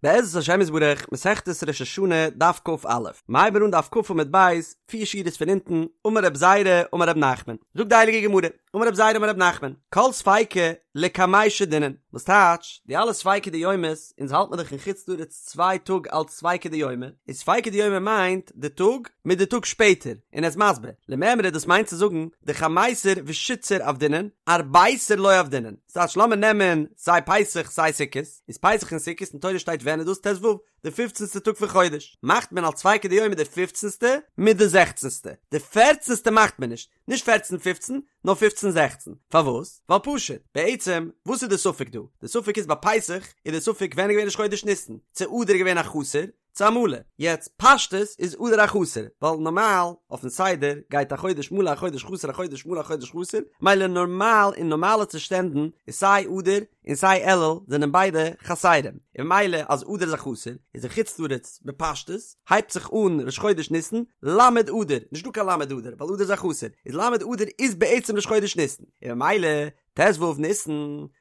בעזרת השם יתברך, מסכת ראש השנה, דף כ"א, מ'הייבן אן דף כ עמוד ב', פיר שורות פון אונטן, אמר רב זירא, אמר רב נחמן. זאגט די הייליגע גמרא, אמר רב זירא אמר רב נחמן, כל ספיקא לקמיה שדינן, וואס טייטש, די אלע ספיקא דיומא'ס, אונז האלט מען דאך אין חוץ לארץ צוויי טאג אלץ ספיקא דיומא, איז ספיקא דיומא מיינט די טאג מיט די טאג שפעטער, און ער איז מסביר, למימרא דאס מיינט צו זאגן, דחמיסר ושיתסר עבדינן, ארביסר לא עבדינן, ס'טייטש לאמיר נעמען סיי פסח סיי סוכות, איז פסח און סוכות אין תורה שטייט ווען איז דאס ט"ו, די פופצנסטע טאג פון חודש, מאכט מען אלס ספיקא דיומא די פופצנסטע מיט די זעכצנסטע, די פערצנסטע מאכט מען נישט, נישט פערצן פופצן, נאר פופצן זעכצן, פארוואס? ווייל פשוט, בעצם וואס איז די ספק דא? די ספק איז ביי פסח איז די ספק ווען איז געווען ראש חודש ניסן, צו אדר איז געווען א חסר, צו א מלא, יעצט פשטות איז אדר א חסר, ווייל נארמאל אויפן סדר גייט א חודש מלא א חודש חסר א חודש מלא א חודש חסר, מילא נארמאל אין נארמאלע צושטענדן איז סיי אדר און סיי אלול זענען ביידע חסרים, און ממילא אז אדר איז א חסר איז אין חוץ לארץ בפשטות הייבט זיך אן ראש חודש ניסן ל' אדר, נישט דא קיין ל' אדר ווייל אדר איז א חסר, איז ל' אדר איז בעצם ראש חודש ניסן, און ממילא ט"ו ניסן,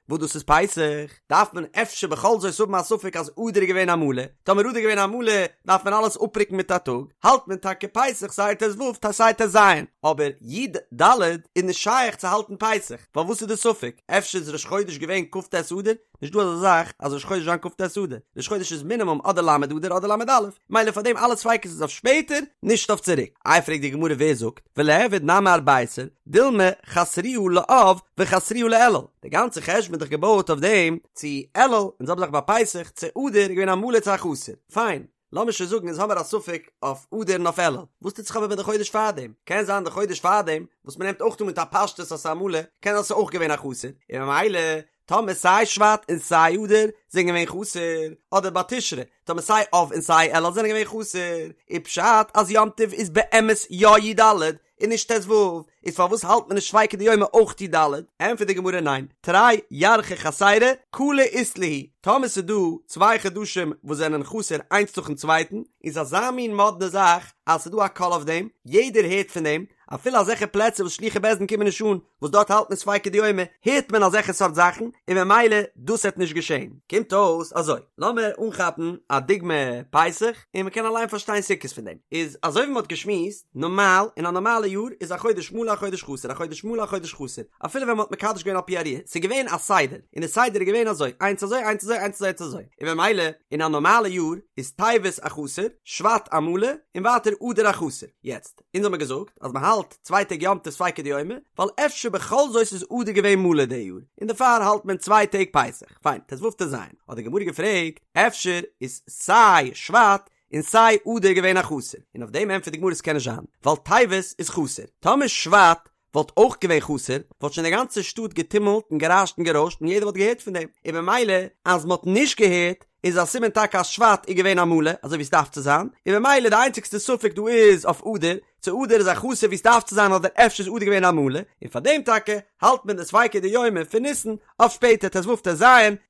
וואס דאס איז פסח, דארף מען אפשר בכל זאת האבן א ספק אז אדר איז געווען א מלא, טאמער אדר איז געווען א מלא דארף מען אלעס אפרוקן מיט א טאג, האלט מען טאקע פסח סיי ט"ו סיי ט"ז, אבער י"ד איז נישט שייך צו האלטן פסח, ווייל וואס איז די ספק? אפשר איז ראש חודש געווען כ"ט אדר? נישט דא אזא זאך אז ראש חודש זיין כ"ט אדר, ראש חודש איז מינימום אדער ל' אדר אדער ל"א, מילא פאר דעם אלע ספיקות איז אויף שפעטער, נישט אויף צוריק. איי פרעגט די גמרא ווער זאגט, וליעבד נמי ארביסר, דילמא חסרוה לאב וחסרוה לאלול, די גאנצע חשבון איז דאך געבויעט אויף דעם צו אלול און זעלבע זאך ביי פסח צו אדר איז געווען א מלא צו א חסר, פיין, לאמיר שוין זאגן אונז האמיר א ספק אויף אדר און אויף אלול, וואס טוט זיך אבער מיט די חודש פארדעם? קען זיין די חודש פארדעם וואס מ'נעמט אויך אן מיט א פשטות אז ס'איז א מלא, קען זיין ס'איז אויך געווען א חסר, און ממילא טאמער סיי שבט און סיי אדר זענען געווען חסר, אדער ביי תשרי, טאמער סיי אב און סיי אלול זענען געווען חסר, איז פשט אז יום טוב איז באמת יא י"ד און נישט ט"ו, איז פארוואס האלט מען נישט ספיקא דיומא אויך י"ד? ענטפערט די גמרא ניין, תרי ירחי חסירי קלא אית להו, טאמער ס'איז דא צוויי חדשים וואס זענען חסר איינס נאכן צווייטן, איז אזא מין מאדנע זאך אז ס'איז דא א קול אויף דעם, יעדער הערט פון דעם, אפילו אזעלכע פלעצער וואס שלוחי בית דין קומען נישט אן, וואס דארט האלט מען ספיקא דיומא, הערט מען אזעלכע סארט זאכן, און ממילא דאס העט נישט געשען. קומט אויס אזוי, לאמיר אנכאפן א דוגמא פסח, און מען קען אליין פארשטיין סוכות פון דעם. איז אזוי ווי מען האט געשמועסט, נארמאל, אין א נארמאלע יאר איז א חודש מלא א חודש חסר, א חודש מלא א חודש חסר, אפילו ווען מען האט מקדש געווען על פי הראיה, ס'איז געווען א סדר, און די סדר איז געווען אזוי, איינס אזוי, איינס אזוי, איינס אזוי, איינס אזוי, און ממילא, אין א נארמאלע יאר איז טבת א חסר, שבט א מלא, און ווייטער אדר א חסר. יעצט. אונז האמיר געזאגט אז מען האלט צוויי טעג יום טוב ספיקא דיומא, ווייל אפשר בכל זאת איז אדר געווען מלא די יאר, און דערפאר האלט מען צוויי טעג פסח, פיין, ט"ו ט"ז, האט די גמרא געפרעגט, אפשר איז סיי שבט און סיי אדר געווען א חסר, און אויף דעם ענטפערט די גמרא ס'קען נישט זיין, ווייל טבת איז חסר, טאמער שבט וואלט אויך געווען חסר, וואלט שוין די גאנצע שטאט געטומלט און גערעשט און גערוישט און יעדער וואלט געהערט פון דעם, און במילא אז מען האט נישט געהערט איז א סימן טאקע אז שבט איז געווען א מלא אזוי ווי עס דארף צו זיין, און במילא די איינציגסטע ספק דא איז אויף אדר, צו אדר איז א חסר ווי עס דארף צו זיין אדער אפשר איז אדר געווען א מלא, און פאר דעם טאקע האלט מען די ספיקא דיומא פון ניסן אויף שפעטער ט"ו ט"ז,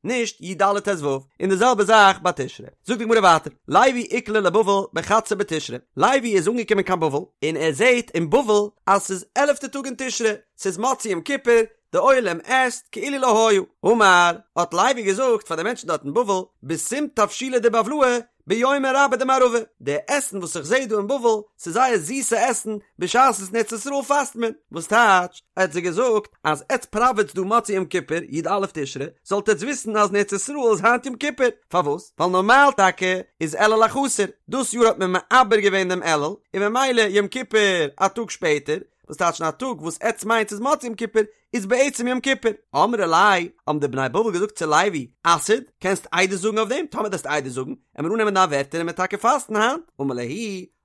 נישט י"ד ט"ו, און די זעלבע זאך ביי תשרי. זאגט די גמרא ווייטער, לוי איקלע לבבל בחדסר בתשרי, לוי איז אנגעקומען קיין בבל, און ער זעט אין בבל אז ס'איז עלעפטע טאג אין תשרי, ס'איז מוצאי יום כיפור, די עולם עסט כאילו לא היה. אמר, האט לוי געזאגט פאר די מענטשן דארט אין בבל, בסים תבשילא דבבלאי, ביומא רבה דמערבא, די עסן וואס איך זעה דא אין בבל, ס'איז זייער זיסע עסן, בשעת וואס אין ארץ ישראל פאסט מען. וואס טייטש, ער האט זיי געזאגט, אז עטץ פראוועטס דא מוצאי יום כיפור, י"א תשרי, זאלט עטץ וויסן אז אין ארץ ישראל איז היינט יום כיפור. פארוואס? ווייל נארמאל טאקע איז אלול א חסר, דאס יאר האט מען מעבר געווען דעם אלול, און ממילא יום כיפור א טאג שפעטער, וואס טייטש אין א טאג וואס עטץ מיינטס איז מוצאי יום כיפור, איז בעצם יום כיפור. אמרי ליה, האבן די בני בבל געזאגט צו לוי, אסהיד, קענסט עדות זאגן אויף דעם? טאמער דו וועסט עדות זאגן, עמיר אננעמען דיין ווערטער און מ'עט טאקע פאסטן היינט. אמר להו,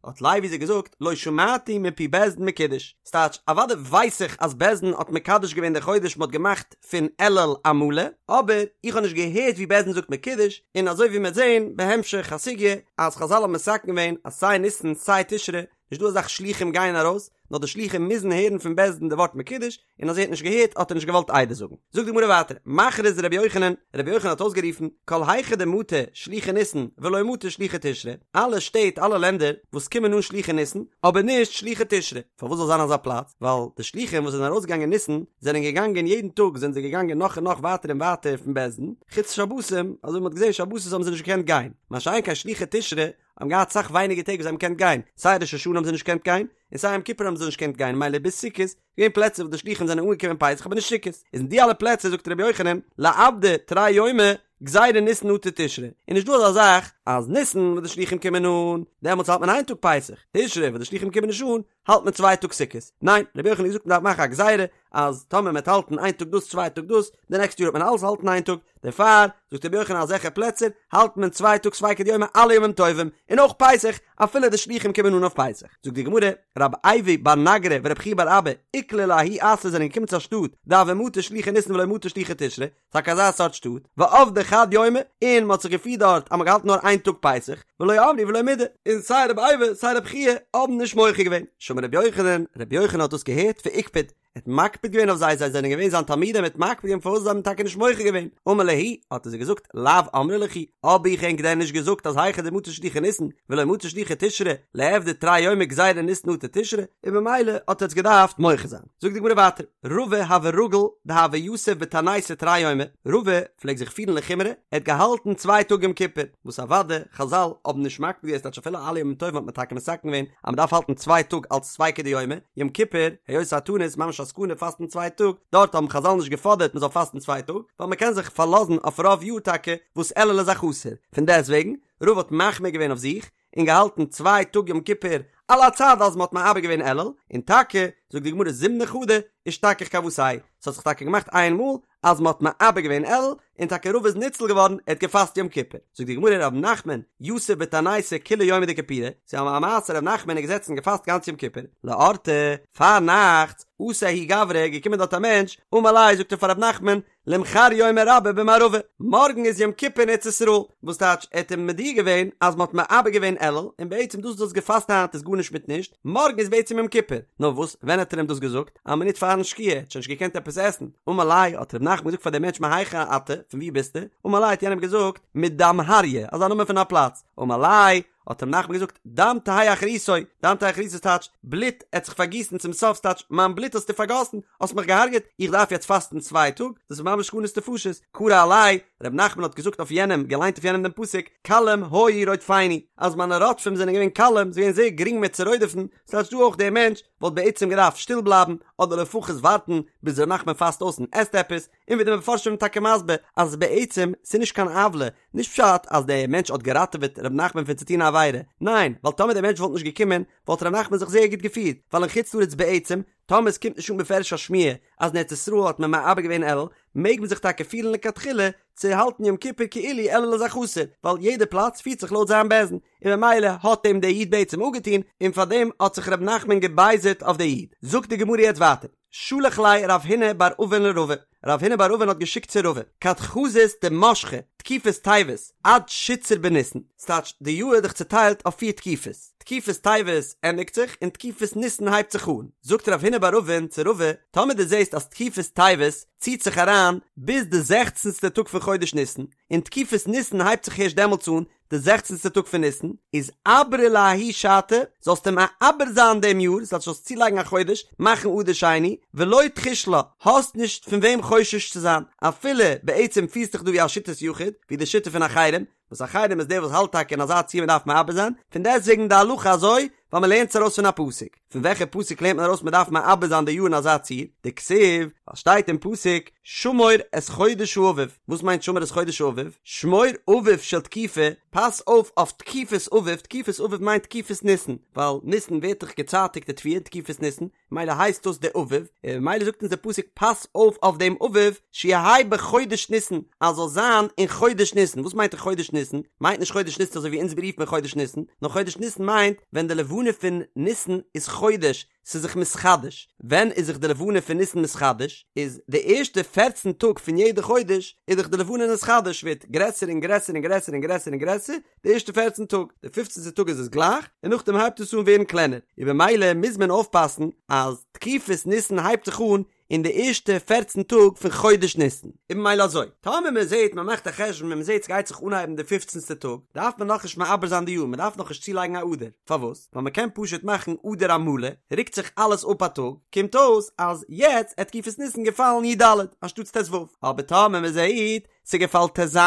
האט לוי זיי געזאגט, לא שמעתי מפי בית דין מקודש. ס'טייטש, אוודאי ווייס איך אז בית דין האט מקדש געווען די חודש מ'האט געמאכט פון אלול א מלא, אבער איך האב נישט געהערט ווי בית דין זאגט מקודש, און אזוי ווי מ'וועט זען בהמשך הסוגיא אז חזל האבן מתקן געווען אז סיי ניסן סיי תשרי נישט דא אזאך שלוחים גייען ארויס, נאר די שלוחים מוזן הערן פון בית דין די ווארט מקודש, און אז ער האט נישט געהערט. געהערט האט ער נישט געוואלט עדות זאגן. זאגט די גמרא ווייטער, מכריז רבי יוחנן, רבי יוחנן האט אויסגערופן, כל היכא דמטו שלוחי ניסן ולא מטו שלוחי תשרי, אלע שטעט אלע לענדער וואס קומען אן שלוחי ניסן, אבער נישט שלוחי תשרי, פארוואס זאל זיין אזא פלאץ? ווייל די שלוחים וואס זענען ארויסגעגאנגען ניסן, זענען געגאנגען יעדן טאג זענען זיי געגאנגען נאך און נאך ווייטער און ווייטער פון בית דין, חוץ שבתים, אזוי ווי מ'האט געזען שבתות האבן זיי נישט געקענט גיין, מה שאין כן שלוחי תשרי האבן געהאט סאך ווייניגער טעג וואס זיי האבן געקענט גיין, סיי ראש השנה האבן זיי נישט געקענט גיין, און סיי יום כיפור האבן זיי נישט געקענט גיין, מילא ביז סוכות, געווען פלעצער וואס די שלוחים זענען אנגעקומען פסח אבער נישט סוכות, איז אין די אלע פלעצער זאגט רבי יוחנן, ליעבדו תרי יומי, גזירה ניסן אטו תשרי, איז נישט דא אזא זאך אז ניסן וואס די שלוחים קומען אן, דעמאלטס האלט מען איין טאג פסח, תשרי וואס די שלוחים קומען נישט אן, האלט מען צוויי טאג סוכות. ניין, רבי יוחנן האט געזאגט מען דארף מאכן א גזירה אז טאמער מען וועט האלטן איין טאג דאס צוויי טאג דאס, די נעקסטע יאר וועט מען אלעס האלטן איין טאג, דערפאר זאגט רבי יוחנן אזעלכע פלעצער האלט מען צוויי טאג ספיקא דיומא אלע ימים טובים, און אויך פסח, אפילו די שלוחים קומען אן אויף פסח. זאגט די גמרא, רב אייבו בר נגרא ורב חייא בר אבא איקלעו לההוא אתרא זענען געקומען צו א שטאט דהוו מטו שלוחי ניסן ולא מטו שלוחי תשרי, טאקע אזא סארט שטאט, ועבדי חד יומא, און מ'האט זיך געפירט דארט אז מ'האט געהאלטן נאר איין טאג פסח, ולא אמרי ולא מידי, און סיי רבי אייבו סיי רבי חייא האבן נישט מוחה געווען. שמע רבי יוחנן, רבי יוחנן האט דאס געהערט ואיקפד, ער האט מקפיד געווען אויף זיי, זיי זענען געווען זיין תלמידים, ער האט מקפיד געווען פארוואס זיי האבן טאקע נישט מוחה געווען, אמר להו, האט ער זיי געזאגט, לאו אמרי לכו, האב איך ענק דען נישט געזאגט אז היכא דמטו שלוחי ניסן, ולא מטו שלוחי תשרי, ליעבדו תרי יומי גזירה ניסן אטו תשרי, און במילא האט עטס געדארפט מוחה זיין. זאגט די גמרא ווייטער, רבא הוה רגיל דהוה יתיב בתעניתא תרי יומי, רבא פלעגט זיך פירן לחומרא, ער האט געהאלטן צוויי טאג יום כיפור, וואס אוודאי חזל האבן נישט מקפיד געווען ס'טייטש אפילו אלע ימים טובים האט מען טאקע מתקן געווען אז מען דארף האלטן צוויי טאג אלץ ספיקא דיומא, יום כיפור, היות ס'איז א תענית ממש א סכנה פאסטן צוויי טאג, דארט האבן חזל נישט געפאדערט מען זאל פאסטן צוויי טאג, ווייל מען קען זיך פארלאזן אויף רוב יאר טאקע וואס אלול איז א חסר, פון דעסטוועגן, רבא האט מחמיר געווען אויף זיך, און געהאלטן צוויי טאג יום כיפור על הצד אז מען האט מעבר געווען אלול, און טאקע זאגט די גמרא זימנא חדא אשתכח כוותיה, ס'האט זיך טאקע געמאכט איין מאל אז מען האט מעבר געווען אלול, און טאקע רבא איז ניצל געווארן, ער האט געפאסט יום כיפור. זאגט די גמרא רב נחמן יתיב בתעניתא כוליה יומא דכיפורי, ס'איז א מעשה רב נחמן איז געזעצן און געפאסט גאנץ יום כיפור, לאורתא, פארנאכטס, אתא ההוא גברא, געקומען דארט א מענטש, אמר ליה זאגט ער פאר רב נחמן, למחר יומא רבא במערבא, מארגן איז יום כיפור אין ארץ ישראל, וואס טייטש ער האט אים מודיע געווען אז מען האט מעבר געווען אלול, און בעצם דאס וואס דו האסט געפאסט היינט איז גארנישט מיט נישט, מארגן איז בעצם יום כיפור, נאר וואס ווען האט ער אים דאס געזאגט? א מינוט פארן שקיעה, ער האט שוין נישט געקענט עפעס עסן, אמר ליה האט ר' נחמן געזאגט פאר דעם מענטש מהיכא אתה, פון וואו ביסטו? אמר ליה האט יענער געזאגט מדמהריא, אזא נאמען פון א פלאץ, אמר ליה האט ר' נחמן געזאגט, דם תהא אחריתו, דם תהא אחריתו טייטש, בלוט עט זיך פארגיסן צום סוף, ס'טייטש, מיין בלוט האסטו פארגאסן, האסט מיך געהארגעט, איך דארף יעצט פאסטן צוויי טאג, דאס איז ממש סכנת נפשות, קרי עליה, ר' נחמן האט געזאגט אויף יענעם, געליינט אויף יענעם דעם פסוק, קלים היו רודפיני, אז מיינע רודפים זענען געווען קלים, ס'איז געווען זייער גרינג מיר צו רודפ'ן, ס'טייטש דא אויך דער מענטש וואלט בעצם געדארפט שטיל בלייבן, אדער לפחות ווארטן ביז ר' נחמן פאסט אויס און עסט עפעס, און ווי די מפרשים זענען טאקע מסביר אז בעצם ס'איז נישט קיין עוולה, נישט פשט אז דער מענטש האט געראטעוועט ר' נחמן פון צו טון א עבירה, ניין, ווייל טאמער דער מענטש וואלט נישט געקומען וואלט ר' נחמן זיך זייער גוט געפירט, ווייל אין חוץ לארץ בעצם, טאמער עס קומט נישט אן בפירוש א שמועה אז אין ארץ ישראל האט מען מעבר געווען אלול, מעג מען זיך טאקע פירן לכתחילה צו האלטן יום כיפור כאילו אלול איז א חסר, ווייל יעדע פלאץ פירט זיך לויט זיין בית דין, און ממילא האט אים דער איד בעצם אפגעטון, און פארדעם האט זיך ר' נחמן געבייזערט אויף דער איד. זאגט די גמרא יעצט ווייטער. שלח ליה רב הונא בר אבין לרבא, רב הונא בר אבין האט געשיקט צו רבא, כד חזית דמשכא תקופת טבת עד שיתסר בניסן, ס'טייטש די יאר איז דאך צוטיילט אויף פיר תקופות, תקופת טבת ענדיגט זיך און תקופת ניסן הייבט זיך אן, זאגט רב הונא בר אבין צו רבא, טאמער דו זעסט אז תקופת טבת ציט זיך אריין ביז די זעכצנסטע טאג פון חודש ניסן, און תקופת ניסן הייבט זיך הערשט דעמאלטס אן, די זעכצנסטע טאג פון ניסן, איז עברה לההיא שעתא, זאלסטו מעבר זיין דעם יאר, ס'טייטש זאלסט צולייגן א חודש, מאכן אדר שני, ולא תחוש לה, האסט נישט פון וועם חושש צו זיין, אפילו בעצם פירסט דיך דא ווי א שיטת יחיד, ווי די שיטה פון אחרים, וואס אחרים איז דער וואס האלט טאקע אין אזא ציור מ'דארף מעבר זיין, פון דעסטוועגן די הלכה אזוי, ווייל מ'לערנט עס ארויס פון א פסוק. פון וועלכע פסוק לערנט מען ארויס מ'דארף מעבר זיין די יאר אין אזא ציור? דכתיב, ווייל שטייט אין פסוק, שמור את חודש האביב, וואס מיינט שמור את חודש האביב? שמור אביב של תקופה, פאס אויף אויף תקופת אביב, תקופת אביב מיינט תקופת ניסן, ווייל ניסן ווערט דאך געצייטיגט די תבואה אין תקופת ניסן, מילא הייסט דאס די אביב, און ממילא זאגט אונז דער פסוק פאס אויף אויף דעם אביב, שיהא בחודש ניסן, אז זאל זיין אין חודש ניסן, וואס מיינט אין חודש ניסן? מיינט נישט חודש ניסן אזוי ווי אונז רופט מען חודש ניסן, נאר חודש ניסן מיינט ווען די לבנה פון ניסן איז חודש, ס'איז זיך מתחדש, ווען איז זיך די לבנה פון ניסן מתחדש? איז די ערשטע פערצן טאג פון יעדע חודש איז דאך די לבנה נתחדש, ווערט גרעסער און גרעסער און גרעסער און גרעסער און גרעסער, די ערשטע פערצן טאג, די פופצנטע טאג איז עס גלייך, און נאכדעם הייבט עס אן ווערן קלענער, און במילא מוז מען אויפפאסן אז תקופת ניסן הייבט זיך אן אין די ערשטע פערצן טאג פון חודש ניסן. און ממילא אזוי, טאמער מען זעט מען מאכט א חשבון און מען זעט ס'גייט זיך אנהייבן די פופצנסטע טאג, דארף מען נאכנישט מעבר זיין די יאר, מען דארף נאכנישט צולייגן א אדר, פארוואס? ווייל מען קען פשוט מאכן אדר המלא, רוקט זיך אלעס אפ א טאג, קומט אויס אז יעצט עט תקופת ניסן געפאלן י ד אנשטאטס ט ו, אבער טאמער מען זעט ס'געפאלט ט ז,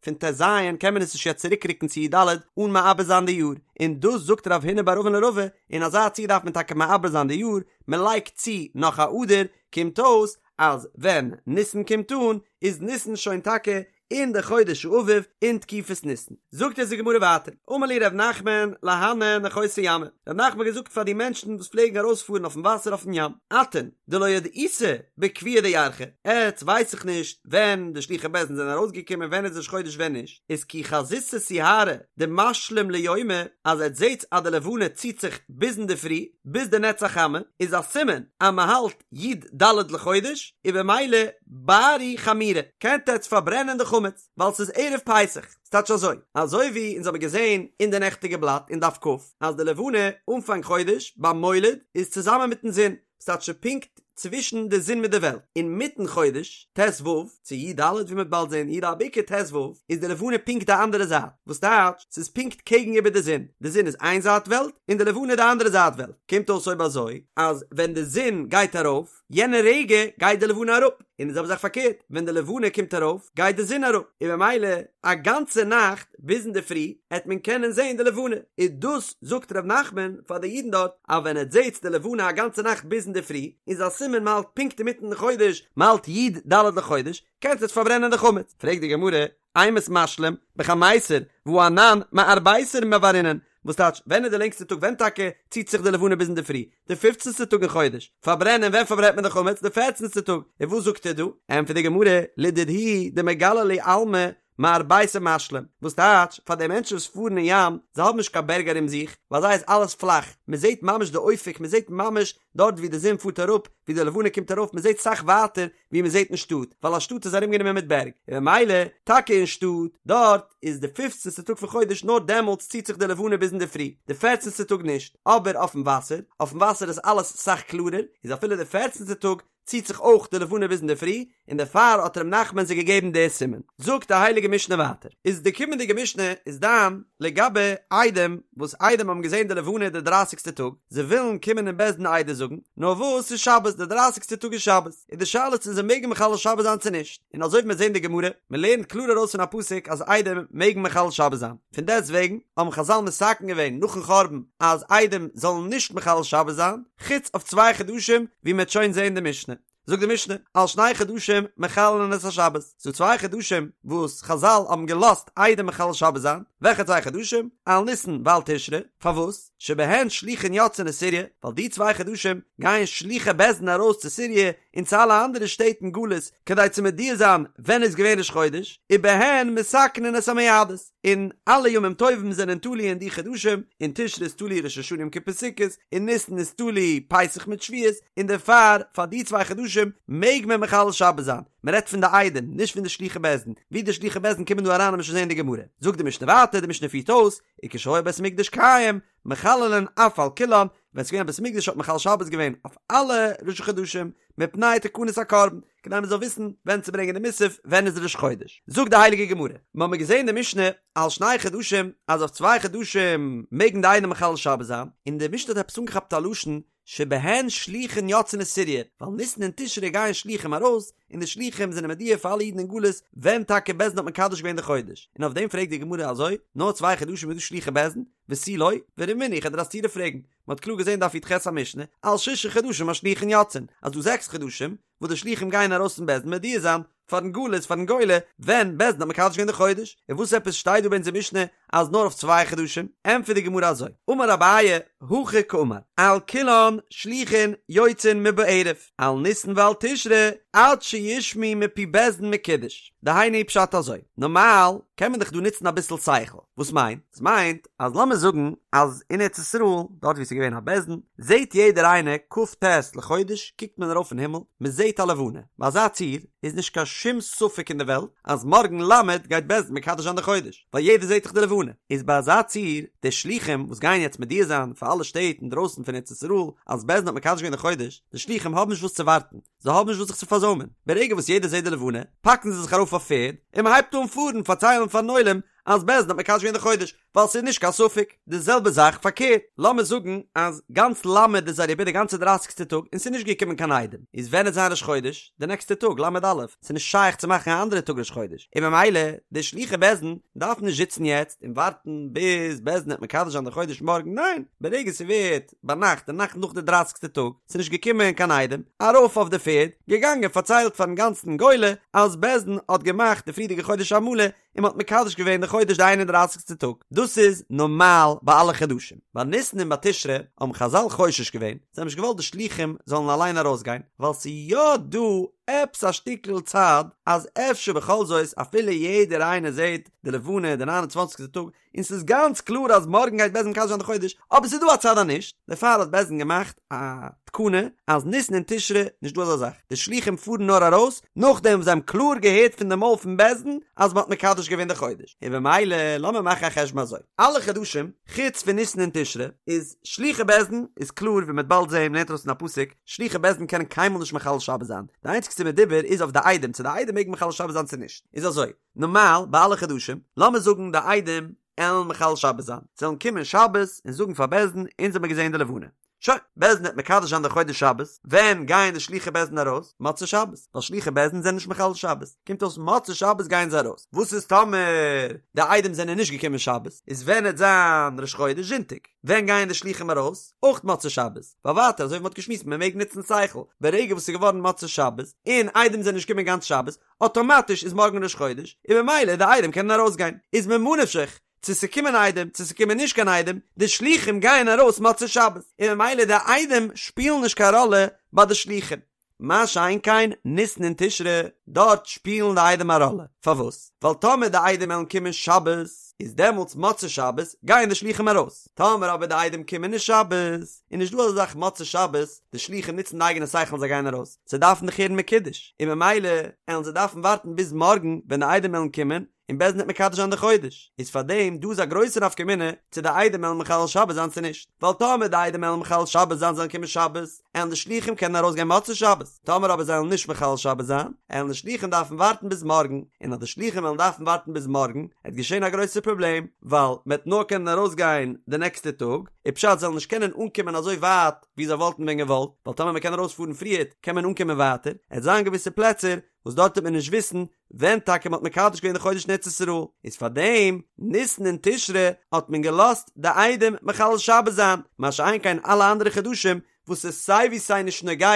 פון ט ז קען מען עס נישט יעצט צוריקרוקן צו י ד אן מעבר זיין די יאר, און דאס זאגט רב הונא בר אבין לרבא, אין אזא ציור דארף מען טאקע מעבר זיין די יאר, מען לייגט צו נאך א אדר, קומט אויס אז ווען ניסן קומט אן איז ניסן שוין טאקע אין די חודש האביב אין תקופת ניסן. זאגט אונז די גמרא ווייטער, אמר להו ר' נחמן להנהו נחותי ימא, ר' נחמן האט געזאגט פאר די מענטשן וואס פלעגן ארויספארן אויפן וואסער אויפן ים, אתון דלא ידעיתו בקביעא דירחא, עטץ ווייס איך נישט ווען די שלוחי בית דין זענען ארויסגעקומען ווען איז ראש חודש ווען נישט, איז כי חזיתו סיהרא דמשלים ליומא, אז עטץ זעטס אז די לבנה ציט זיך ביז אינדערפרי ביז די נץ החמה, איז א סימן אז מען האלט י ד לחודש, און במילא בארו חמירא, קענט עטץ פארברענען די חמץ, ווייל ס'איז ערב פסח. ס'טייטש אזוי, אזוי ווי אונז האבן געזען אין די נעכטיגע בלאט אין דף כ, אז די לבנה אנפאנג חודש ביים מולד איז צוזאמען מיטן זון, ס'טייטש פונקט צווישן די זון מיט די וועלט, אינמיטן חודש, ט ו, צו י ד ווי מ'וועט באלד זען, י ד בעיקר ט ו, איז די לבנה פונקט די אנדערע זייט, וואס טייטש ס'איז פונקט קעגן איבער די זון, די זון איז איין זייט וועלט און די לבנה די אנדערע זייט וועלט, קומט אויס אויב אזוי אז ווען די זון גייט ארויף יענע רגע גייט די לבנה אראפ, און די זעלבע זאך פארקערט ווען די לבנה קומט ארויף גייט די זון אראפ, און במילא א גאנצע נאכט ביז אינדערפרי העט מען קענען זען די לבנה, און דאס זאגט ר' נחמן פאר די אידן דארט אז ווען עטס זעטס די לבנה א גאנצע נאכט ביז אינדערפרי איז א סימן מ'האלט פונקט אינמיטן די חודש, מ'האלט י ד לחודש, קענטס עטס פארברענען די חמץ. פרעגט די גמרא, אימת משלים, בחמיסר, והא אנן מארביסר מבערינן, וואס טייטש, ווען איז די לענגסטע טאג, ווען טאקע ציט זיך די לבנה ביז אינדערפרי? די פופצנסטע טאג אין חודש. פארברענען, ווען פארברענט מען די חמץ? די פערצנסטע טאג. און וואס זאגט ער דא? ענטפערט די גמרא, לדידהו דמגלי להו עלמא מארביסר משלים, וואס טייטש, פאר די מענטשן וואס פארן אין ים, זיי האבן נישט קיין בערג ארום זיך, ביי זיי איז אלעס פלאך, מען זעט ממש די אופק, מען זעט ממש דארט ווי די זון פארט אראפ, ווי די לבנה קומט ארויף, מען זעט סאך ווייטער ווי מען זעט אין שטאט, ווייל א שטאט איז ארומגענומען מיט בערג, און ממילא טאקע אין שטאט, דארט איז די פופצנסטע טאג פון חודש נאר דעמאלטס ציט זיך די לבנה ביז אינדערפרי, די פערצנסטע טאג נישט, אבער אויפן וואסער, אויפן וואסער איז אלעס סאך קלארער, איז אפילו די פערצנסטע טאג ציט זיך אויך די לבנה ביז אינדערפרי, און דערפאר האט ר' נחמן זיי געגעבן די סימן. זאגט די הייליגע משנה ווייטער, איז די קומענדיגע משנה איז דן לגבי עדים, וואס עדים האבן געזען די לבנה די דרייסיגסטע טאג, זיי ווילן קומען אין בית דין עדות זאגן, נאר וואס ס'איז שבת, די דרייסיגסטע טאג איז שבת, איז די שאלה צו זיי מעגן מחלל שבת זיין צו נישט, און אזוי ווי מיר זעהן די גמרא, מען לערנט קלאר ארויס פון א פסוק אז עדים מעגן מחלל שבת זיין, פון דעסט וועגן האבן חזל מתקן געווען נאכן חורבן אז עדים זאלן נישט מחלל שבת זיין, חוץ אויף צוויי חדשים ווי מען וועט שוין זעהן די משנה. זאגט די משנה, על שני חדשים מחללין את השבת, ס'דא צוויי חדשים וואס חזל האבן געלאזט עדים מחלל שבת זיין, וועלכע צוויי חדשים? על ניסן ועל תשרי, פארוואס? שבהן שלוחין יוצאין לסוריא, ווייל די צוויי חדשים גייען שלוחי בית דין ארויס צו סוריא און צו אלע אנדערע שטעט אין גלות כדי צו מודיע זיין ווען איז געווען ראש חודש, ובהן מתקנין את המועדות, און אלע ימים טובים זענען תלוי אין די חדשים, אין תשרי איז תלוי ראש השנה יום כיפור סוכות, אין ניסן איז תלוי פסח מיט שבועות, און דערפאר פאר די צוויי חדשים מעג מען מחלל שבת זיין, מען רעדט פון די עדים, נישט פון די שלוחי בית דין, ווי די שלוחי בית דין קומען דא אריין וועט מען שוין זען אין די גמרא. זאגט די משנה ווייטער, די משנה פירט אויס, וכשהיה בית המקדש קיים, מחללין אף על כולן, ווען ס'איז געווען א בית המקדש האט מען מחלל שבת געווען אויף אלע ראשי חדשים, מפני תקנת הקרבן, כדי מען זאל וויסן ווען צו ברענגען די מוסף, ווען איז ראש חודש. זאגט די הייליגע גמרא, מיר האבן געזען די משנה על שני חדשים, אז אויף צוויי חדשים מעגן די עדים מחלל שבת זיין, און די משנה האט עפעס אנגעכאפט א לשון שבהן שלוחין יוצאין לסוריא, ווייל ניסן און תשרי גייען שלוחים ארויס, און די שלוחים זענען מודיע פאר אלע אידן אין גלות ווען טאקע בית דין האט מקדש געווען די חודש, און אויף דעם פרעגט די גמרא אזוי, נאר צוויי חדשים איז דא שלוחי בית דין, ותו לא, ורמינהו איך וועל דיר א סתירה פרעגן, מען האט קלאר געזען דף י"ח א משנה, על שישה חדשים השלוחין יוצאין, אז דא זעקס חדשים וואס די שלוחים גייען ארויס פון בית דין מודיע זיין פארן גלות פארן גולה ווען בית דין האט מקדש געווען די חודש, און וואס עפעס שטייט דא ביי אונזער משנה אז נאר אויף צוויי חדשים? ענטפערט די גמרא אזוי, אמר אביי, הכי קאמר, על כולן שלוחין יוצאין מבערב, על ניסן ועל תשרי עד שישמעו מפי בית דין מקודש, דהיינו פשט אזוי, נארמאל קען מען דאך דא נוצן אביסל שכל, וואס מיינט? עס מיינט אז לאמיר זאגן אז אין ארץ ישראל דארט ווי עס איז געווען א בית דין זעט יעדער איינער כ"ט לחודש קוקט מען ארויף אין הימל מען זעט א לבנה, ביי אזא ציור איז נישט קיין שום ספק אין די וועלט אז מארגן ל' גייט בית דין מקדש זיין די חודש ווייל יעדער זעט דאך די לבנה. לבנה, איז ביי אזא ציור, די שלוחים וואס גייען יעצט מודיע זיין פאר אלע שטעט אינדרויסן פון ארץ ישראל אז בית דין האט מקדש געווען די חודש, די שלוחים האבן נישט וואס צו ווארטן, זיי האבן נישט וואס זיך צו פארזוימען, ברגע וואס יעדער זעט די לבנה, פאקן זיי זיך ארויף אויף פערד, און מען הייבט אן פארן פארציילן פארן עולם אז בית דין האט מקדש געווען די חודש, ווייל ס'איז נישט קיין ספק. די זעלבע זאך פארקערט, לאמיר זאגן אז גאנץ ל' איז אריבער די גאנצע דרייסיגסטע טאג און ס'איז נישט געקומען קיין עדים, איז ווען וועט זיין ראש חודש? די נעקסטע טאג ל' א', ס'איז נישט שייך צו מאכן א אנדערע טאג ראש חודש, און ממילא די שלוחי בית דין דארפן נישט זיצן יעצט און ווארטן ביז בית דין וועט מקדש זיין די חודש מארגן, ניין, ברגע ס'ווערט ביינאכט די נאכט נאך די דרייסיגסטע טאג, ס'איז נישט געקומען קיין עדים, ארויף אויף די פערד, געגאנגען פארציילט פארן גאנצן גולה אז בית דין האט געמאכט די פריערדיגע חודש א מלא, און מ'האט מקדש געווען די חודש די איין און דרייסיגסטע טאג, דאס איז נארמאל ביי אלע חדשים. ביי ניסן און ביי תשרי האבן חזל חושש געווען, זיי האבן נישט געוואלט די שלוחים זאלן אליין ארויסגיין, ווייל ס'איז יא דא עפעס א שטיקל צד אז אפשר בכל זאת אפילו יעדער איינער זעט די לבנה די ניין און צוואנציגסטע טאג, און ס'איז גאנץ קלאר אז מארגן גייט בית דין מקדש זיין די חודש, אבער ס'איז דא א צד אז נישט, דערפאר האט בית דין געמאכט א תקנה אז ניסן און תשרי נישט דא אזא זאך, די שלוחים פארן נאר ארויס נאכדעם וואס זיי האבן קלאר געהערט פון די מויל פון בית דין אז מ'האט מקדש געווען די חודש, און במילא לאמיר מאכן א חשבון אזוי, אלע חדשים חוץ פון ניסן און תשרי איז שלוחי בית דין איז קלאר ווי מ'וועט באלד זעהן מ'לערנט ארויס פון א פסוק, שלוחי בית דין קענען קיינמאל נישט מחלל שבת זיין, די איינציגסטע מדובר איז אויף די עדים צו די עדים מעגן מחלל שבת זיין צו נישט, איז אזוי, נארמאל ביי אלע חדשים, לאמיר זאגן די עדים עלן מחלל שבת זיין, זיי וועלן קומען שבת און זאגן פאר בית דין אונז האמיר געזען די לבנה. שוין, בית דין וועט מקדש זיין די חודש שבת, ווען גייען די שלוחי בית דין ארויס? מוצאי שבת, ווייל שלוחי בית דין זענען נישט מחלל שבת, קומט אויס מוצאי שבת גייען זיי ארויס, וואס איז טאמער די עדים זענען נישט געקומען שבת, איז ווען עט זיין ראש חודש זונטאג, ווען גייען די שלוחים ארויס? אויך מוצאי שבת, ווייל ווייטער אזוי ווי מ'האט געשמועסט מען מעג נוצן שכל, ברגע וואס ס'איז געווארן מוצאי שבת, און עדים זענען נישט געקומען גאנץ שבת, אטאמאטיש איז מארגן ראש חודש, און ממילא די עדים קענען ארויסגיין, איז ממה נפשך, צו ס'קומען עדים צו ס'קומען נישט קיין עדים, די שלוחים גייען ארויס מוצאי שבת, און ממילא די עדים שפילן נישט קיין ראלע ביי די שלוחים. מה שאין כן ניסן און תשרי, דארט שפילן די עדים א ראלע, פארוואס? ווייל טאמער די עדים וועלן קומען שבת, איז דעמאלטס מוצאי שבת גייען די שלוחים ארויס, טאמער אבער די עדים קומען נישט שבת, איז נישט דא אזא זאך מוצאי שבת, די שלוחים נוצן די אייגענע שכל און זיי גייען ארויס, זיי דארפן דאך הערן מקודש, און ממילא עלן זיי דארפן ווארטן ביז מארגן ווען די עדים עלן קומען, און בית דין וועט מקדש זיין די חודש, איז פאר דעם דא איז א גרויסע נפקא מינה צו די עדים עלן מחלל שבת זיין צו נישט, ווייל טאמער די עדים עלן מחלל שבת זיין זיי עלן קומען שבת, עלן די שלוחים קענען ארויס גיין מוצאי שבת, טאמער אבער זיי עלן נישט מחלל שבת זיין, עלן די שלוחים דארפן ווארטן ביז מארגן, און אז די שלוחים עלן דארפן ווארטן ביז מארגן, עט געשען א גרויסע פראבלעם, ווייל מ'עט נאר קענען ארויס גיין די נעקסטע טאג, איז פשט זיי עלן נישט קענען אנקומען אזוי ווייט ווי זיי וואלטן ווען געוואלט, ווייל טאמער מ'קען ארויס פארן פריערט קען מען אנקומען ווייטער, עט זיין געוויסע פלעצער וואס דארט וועט מען נישט וויסן ווען טאקע מ'האט מקדש געווען די חודש אין ארץ ישראל, איז פאר דעם ניסן און תשרי האט מען געלאזט די עדים מחלל שבת זיין, מה שאין כן אלע אנדערע חדשים וואס איז סיי ווי סיי נישט נוגע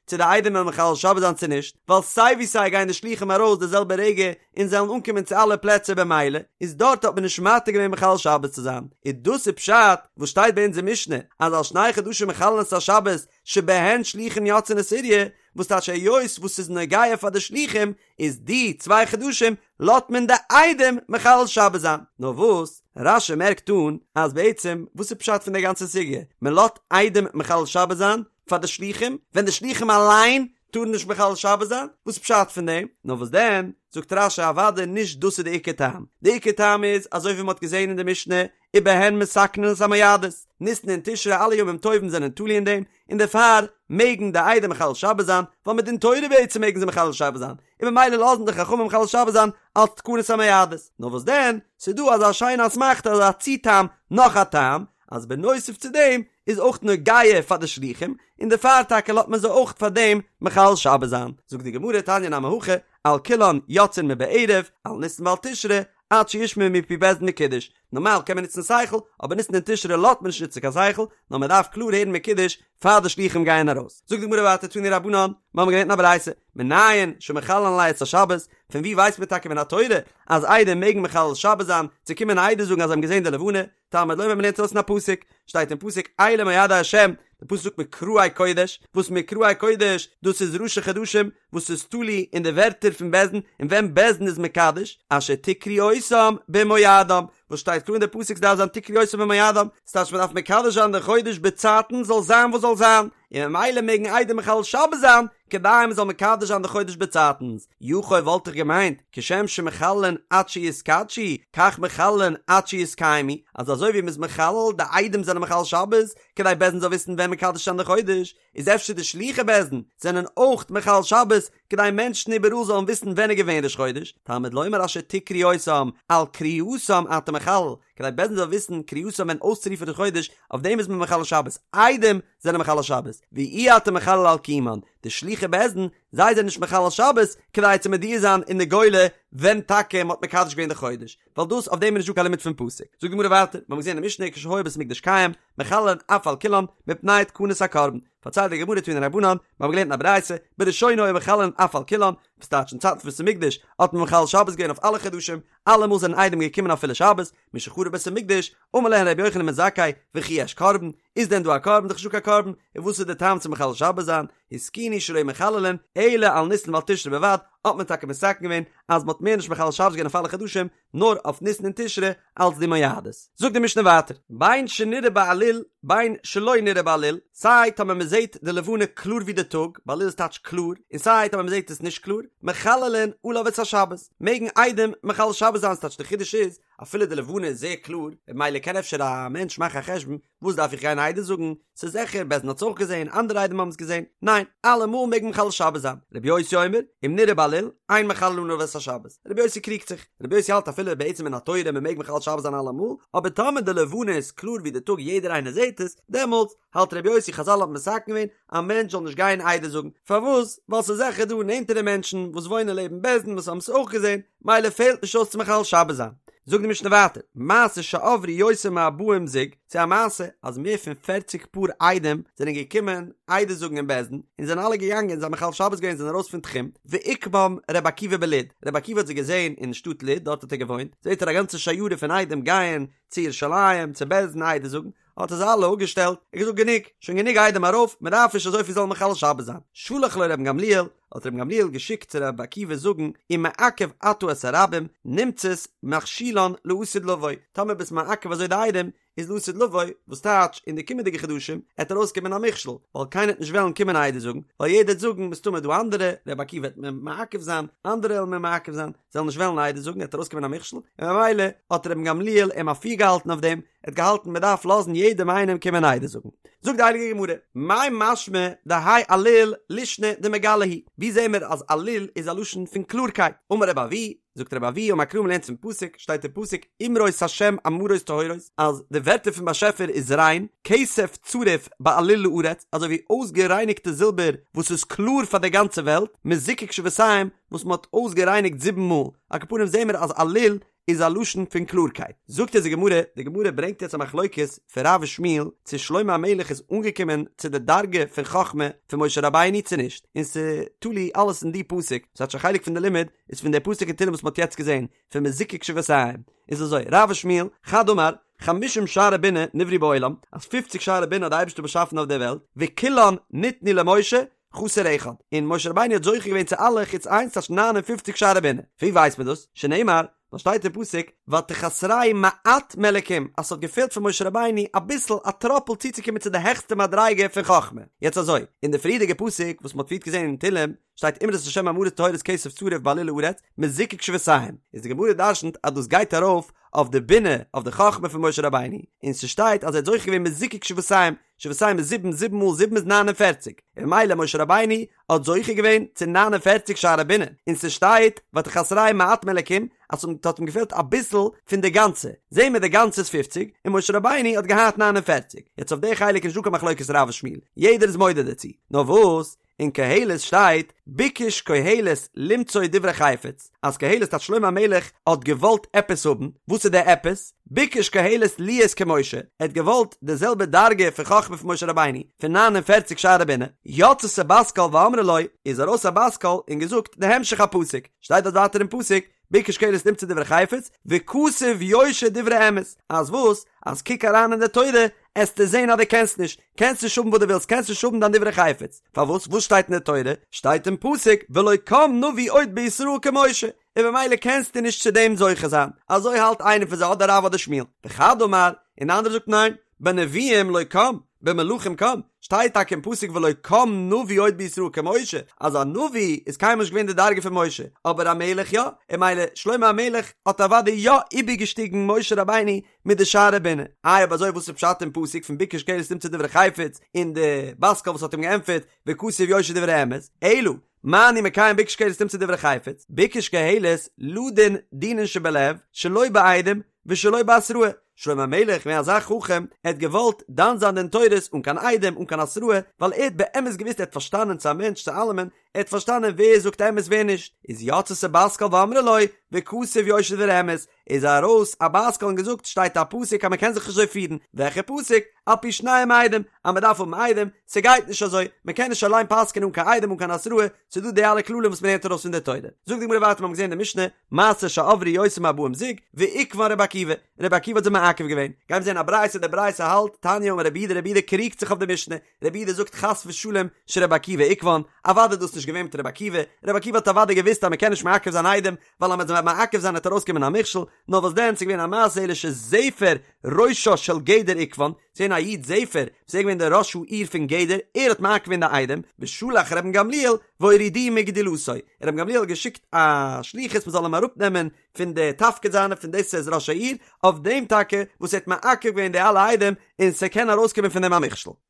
צו די עדים וועלן מחלל שבת זיין צו נישט, ווייל סיי ווי סיי גייען די שלוחים ארויס די זעלבע רגע און זיי וועלן אנקומען צו אלע פלעצער במילא איז דארט האט מען נישט מתיר געווען מחלל שבת צו זיין, איז דאס איז פשט וואס שטייט ביי אונז אין משנה אז על שני חדשים מחללין את השבת שבהן שלוחים יוצאין לסוריא, וואס טייטש היות וואס ס'איז נוגע פאר די שלוחים איז די צוויי חדשים לאזט מען די עדים מחלל שבת זיין, נאר וואס רש"י מערקט אן אז בעצם וואס איז פשט פון די גאנצע סוגיא מען לאזט עדים מחלל שבת זיין פאר די שלוחים ווען די שלוחים אליין טארן נישט מחלל שבת זיין, וואס איז פשט פון דעם? נאר וואס דען זאגט רש"י אוודאי נישט דאס איז די עיקר טעם, די עיקר טעם איז אזוי ווי מען האט געזען אין די משנה ובהן מתקנין את המועדות, ניסן און תשרי אלע ימים טובים זענען תלוי אין דעם, און דערפאר מעגן די עדים מחלל שבת זיין, ווייל מדין תורה בעצם מעגן זיי מחלל שבת זיין, און ממילא לאזן די חכמים מחלל שבת זיין אלס תקנת המועדות. נאר וואס דען, ס'איז דא אזא שיינע אסמכתא אזא צו-טעם, נאך א טעם, אז בנוסף צו דעם איז אויך נוגע פאר די שלוחים, און דערפאר טאקע לאזט מען זיי אויך פאר דעם מחלל שבת זיין. זאגט די גמרא תניא נמי הכי, על כולן יוצאין מבערב, על ניסן ועל תשרי, עד שישמעו מפי בית דין מקודש, נארמאל קען מען נוצן שכל, אבער ניסן און תשרי לאזט מען נישט נוצן קיין שכל, נאר מען דארף קלאר הערן מקודש פאר די שלוחים גייען ארויס. זאגט די גמרא ווייטער תנו רבנן, מיר האבן געלערנט אין א ברייתא, מנין שמחללין עלייהו את השבת, פון וואו ווייסט מען טאקע מן התורה אז עדים מעגן מחלל שבת זיין, צו קומען עדות זאגן אז זיי האבן געזען די לבנה, תלמוד לומר מ'לערנט ארויס אין א פסוק, שטייט אין פסוק אלה מועדי השם, די פסוק זאגט מקראי קודש, וואס מקראי קודש, דאס איז ראשי חדשים, וואס איז תלוי אין די ווערטער פון בית דין, און ווען בית דין איז מקדש, אשר תקראו אותם במועדם, וואס שטייט קלאר אין די פסוק ס'דארף זיין תקראו אותם במועדם, ס'טייטש מ'דארף מקדש זיין די חודש בצייטן זאל זיין וואס זאל זיין, און ממילא מעגן עדים מחלל שבת זיין כדי מ'זאל מקדש זיין די חודש בצייטנס, יכול וואלט איך געמיינט, כשם שמחללין עד שיתקדשו, כך מחללין עד שיתקיימו, אז אזוי ווי מ'איז מחלל, די עדים זענען מחלל שבת, כדי בית דין זאל וויסן ווען מקדש זיין די חודש, איז אפשר די שלוחי בית דין זענען אויך מחלל שבת כדי מענטשן איבעראל זאלן וויסן ווען איז געווען ראש חודש, תלמוד לומר אשר תקראו אותם, על קריאתם אתה מחלל, כדי בית דין זאל וויסן קריאתם ווען אויסצורופן ראש חודש, אויף דעם איז מען מחלל שבת, עדים זענען מחלל שבת, ואי אתה מחלל על קיומן, די שלוחי בית דין, זיי זענען נישט מחלל שבת כדי צו מודיע זיין אין די גולה ווען טאקע מען האט מקדש געווען די חודש, ווייל דאס אויף דעם איז נישטא קיין לימוד פון פסוק. זאגט די גמרא ווייטער, מיר האבן געזען אין משנה כשהיה בית המקדש קיים, מחללין אף על כולן, מפני תקנת הקרבן. פארציילט די גמרא תנו רבנן, מיר האבן געלערנט אין א ברייתא, בראשונה היו מחללין אף על כולן, וואס טייטש אין צייטן פון בית המקדש האט מען מחלל שבת געווען אויף אלע חדשים, אלעמאל זענען עדים געקומען אפילו שבת, משחרב בית המקדש, אמר להן רבי יוחנן בן זכאי, וכי יש קרבן, איז דען דא א קרבן? דאך נישטא קיין קרבן, און וואס איז די טעם צו מחלל שבת זיין? התקינו שלא מחללין אלא על ניסן ועל תשרי בלבד, האט מען טאקע מתקן געווען אז מען האט מער נישט מחלל שבת געווען אויף אלע חדשים, נאר אויף ניסן און תשרי אלץ די מועדות. זאגט די משנה ווייטער, בין שנראה בעליל בין שלא נראה בעליל, סיי טאמער מען זעט די לבנה קלאר ווי די טאג, בעליל איז טייטש קלאר, און סיי טאמער מען זעט עס נישט קלאר, מחללין עליו את השבת, מעגן עדים מחלל שבת זיין, ס'טייטש די חידוש איז, אפילו די לבנה איז זייער קלאר, ממילא קען אפשר א מענטש מאכן א חשבון, וואס דארף איך גיין עדות זאגן, ס'איז זיכער, בית דין האט עס אויך געזען, אנדערע עדים האבן עס געזען, ניין, אלעמאל מעג מען מחלל שבת זיין, רבי יוסי אומר, אם נראה בעליל, אין מחללין עליו את השבת, רבי יוסי קריגט זיך, רבי יוסי האלט אפילו בעצם מן התורה מען מעג מחלל שבת זיין אלעמאל, אבער טאמער די לבנה איז קלאר ווי די טאג יעדער איינער זעט עס, דעמאלטס האלט רבי יוסי חזל האבן מתקן געווען, א מענטש זאל נישט גיין עדות זאגן, פארוואס? ווייל ס'איז זיכער דא נענטערע מענטשן וואס וואוינען לעבן בית דין וואס האבן עס אויך געזען, מילא פעלט נישט אויס צו מחלל שבת זיין. זאגט די משנה ווייטער, מעשה שעברו יותר מארבעים זוג, ס'איז א מעשה אז מער פון פערציג פאר עדים זענען געקומען עדות זאגן אין בית דין, און זענען אלע געגאנגען, זיי האבן מחלל שבת געווען זענען ארויס פון תחום, ועיכבם ר' עקיבא בלוד, ר' עקיבא האט זיי געזען אין שטאט לוד, דארט האט ער געוואוינט, זעט ער א גאנצע שיירה פון עדים גייען צו ירושלים צו בית דין עדות זאגן, האט ער זיי אלע אפגעשטעלט, ער האט געזאגט גענוג, שוין גענוג עדים ארויף, מען דארף נישט אזויפיל זאלן מחלל שבת זיין. שלח לו רבן גמליאל, האט רבן גמליאל געשיקט צו רבי עקיבא זאגן, אם מעכב אתה את הרבים, נמצאת מכשילן לעתיד לבוא, טאמער ביסט מעכב אזוי די עדים, איז לעתיד לבוא, וואס טייטש, אין די קומענדיגע חדשים, עט ארויסקומען א מכשול, ווייל קיינער עט נישט וועלן קומען עדות זאגן, ווייל יעדער עט זאגן, מסתמא דא אנדערע, רבי עקיבא עט מיר מעכב זיין, אנדערע וועלן מיר מעכב זיין, זיי וועלן נישט וועלן עדות זאגן, עט ארויסקומען א מכשול, און ממילא האט רבן גמליאל אים אפירגעהאלטן אויף דעם, ער האט געהאלטן מען דארף לאזן יעדעם איינעם קומען עדות זאגן. זאגט די הייליגע גמרא, מאי משמע דהאי עליל לישנא דמגלי הוא, ווי זעהן מיר אז עליל איז א לשון פון קלארקייט? אמר רבי אבהו, זאגט רבי אבהו, אמר קרא מ'לערנט פון פסוק, שטייט אין פסוק, אמרות השם אמרות טהורות, אז די ווערטער פון באשעפער איז ריין, כסף צרוף בעליל לארץ, אזוי ווי אויסגערייניגטע זילבער וואס איז קלאר פאר די גאנצע וועלט, מזוקק שבעתיים, וואס מען האט אויסגערייניגט זיבן מאל, על כל פנים זעהן מיר אז עליל איז א לשון פון קלארקייט. זאגט אונז די גמרא, די גמרא ברענגט יעצט א מחלוקת פון רב ושמואל צו שלמה המלך איז אנגעקומען צו די דרגה פון חכמה פון משה רבינו צו נישט, און ס'תלוי אלעס אין די פסוק, ס'טייטש א חלק פון די לימוד איז פון די פסוק אין תהלים וואס מ'האט יעצט געזען, פון מזוקק שבעתיים. איז אזוי, רב ושמואל, חד אמר, חמישים שערי בינה נבראו בעולם, אז פופציג שערי בינה האט די אייבערשטער באשאפן אויף דער וועלט, וכולן ניתנו למשה, חסר אחד, און משה רבינו האט זוכה געווען צו אלע חוץ איינס טייטש ניין און פופציג שערי בינה, פון ווי ווייסט מען דאס? שנאמר, ווייל שטייט אין פסוק, ותחסרהו מעט מאלקים, אז ס'האט געפעלט פון משה רבינו אביסל א טראפל צוצוקומען צו די העכסטע מדריגה פון חכמה. יעצט אזוי, אין די פריערדיגע פסוק וואס מ'האט פריערט געזען אין תהלים, שטייט אמרות השם אמרות טהורות כסף צרוף בעליל לארץ, מזוקק שבעתיים, איז די גמרא דרשנ'ט אז דאס גייט ארויף אויף די בינה, אויף די חכמה פון משה רבינו, און ס'שטייט אז ער האט זוכה געווען מזוקק שבעתיים, שבעתיים איז זיבן, זיבן מאל זיבן איז 49, און ממילא משה רבינו האט זוכה געווען צו 49 שערי בינה, און ס'שטייט ותחסרהו מעט מאלקים אז ס'האט אים געפעלט אביסל פון די גאנצע, זעהן מיר די גאנצע איז פופציג, און משה רבינו האט געהאט 49, יעצט אויף די חלק איז נישטא קיין מחלוקת רב ושמואל, יעדער איז מודה דערצו, נאר וואס? אין קהלת שטייט, ביקש קהלת למצוא דברי חפץ, אז קהלת טייטש שלמה המלך האט געוואלט עפעס האבן, וואס איז די עפעס? ביקש קהלת להיות כמשה, ער האט געוואלט די זעלבע דרגה פון חכמה פון משה רבינו, פון 49 שערי בינה, יצתה בת קול ואמרה לו, איז ארויס א בת קול און געזאגט די המשך הפסוק, שטייט דארט ווייטער אין פסוק, ביקש קהלת למצוא דברי חפץ, וכתוב יושר דברי אמת, אז וואס? אז קוק אריין אין די תורה, עסטו זען אז דו קענסט נישט, קענסט נישט האבן וואס דו ווילסט, קענסט נישט האבן דיין דברי חפץ. פארוואס? וואס שטייט אין די תורה? שטייט אין פסוק, ולא קם נביא עוד בישראל כמשה. און במילא קענסטו נישט צו דעם זוכה זיין, אזוי האלט איינער פון זיי אדער רב אדער שמואל, וחד אמר, און די אנדערע זאגט ניין, בנביאים לא קם, במלכים קם, שטייט טאקע אין פסוק ולא קם נביא עוד בישראל כמשה, אז א נביא איז קיינמאל נישט געווען די דרגה פון משה, אבער א מלך יא, און מילא שלמה המלך האט אוודאי יא איבערגעשטיגן משה רבינו מיט די שערי בינה. איי אויב אזוי וואס איז פשט אין פסוק פון ביקש קהלת למצוא דברי חפץ און די בת קול וואס האט אים געענטפערט וכתוב יושר דברי אמת, אלא מה אני מקיים ביקש קהלת למצוא דברי חפץ, ביקש קהלת לדון דינין שבלב שלא בעדים ושלא בהתראה, שלמה המלך געווען אזא חכם, ער האט געוואלט דן זיין דין תורות אן קיין עדים אן קיין התראה, ווייל ער האט באמת געוואוסט ער האט פארשטאנען צו א מענטש צו אלעמען, ער האט פארשטאנען ווער זאגט אמת ווער נישט, איז יצתה בת קול ואמרה לו, וכתוב יושר דברי אמת, איז ארויס א בת קול און געזאגט שטייט א פסוק אז מען קען זיך נישט אזוי פירן, וועלכע פסוק? על פי שניים עדים, אז מען דארף האבן עדים, ס'גייט נישט אזוי, מען קען נישט אליין פסק'ענען אן קיין עדים אן קיין התראה, ס'דא די אלע כללים וואס מען לערנט ארויס פון די תורה. זאגט די גמרא ווייטער מיר האבן געזען אין די משנה, מעשה שעברו יותר מארבעים זוג, ועיכבן רבי עקיבא, רבי עקיבא האט זיי מעכב געווען, גיימיר זען א ברייתא, די ברייתא האלט, תניא אמר רבי יהודה, רבי יהודה קריגט זיך אויף די משנה, רבי יהודה זאגט חס ושלום שרבי עקיבא עיכבן, אוודאי איז דאס נישט געווען מיט רבי עקיבא, רבי עקיבא האט אוודאי געוואוסט אז מען קען נישט מעכב זיין עדים, ווייל אז מען וועט מעכב זיין וועט ארויסקומען א מכשול, נאר וואס דען ס'איז געווען א מעשה אלא שזפר ראשה של גדר עיכבן, ס'איז געווען א איד זפר, וואס איז געווען דער ראש העיר פון גדר, ער האט מעכב געווען די עדים, ושלח רבן גמליאל והורידוהו מגדולתו, רבן גמליאל האט געשיקט א שליחות מען זאל אים אראפנעמען פון די תפקיד זיינע פון דאס ער איז ראש העיר, אויף דעם טאקע וואס ער האט מעכב געווען די אלע עדים און ס'קען ארויסקומען פון דעם א מכשול.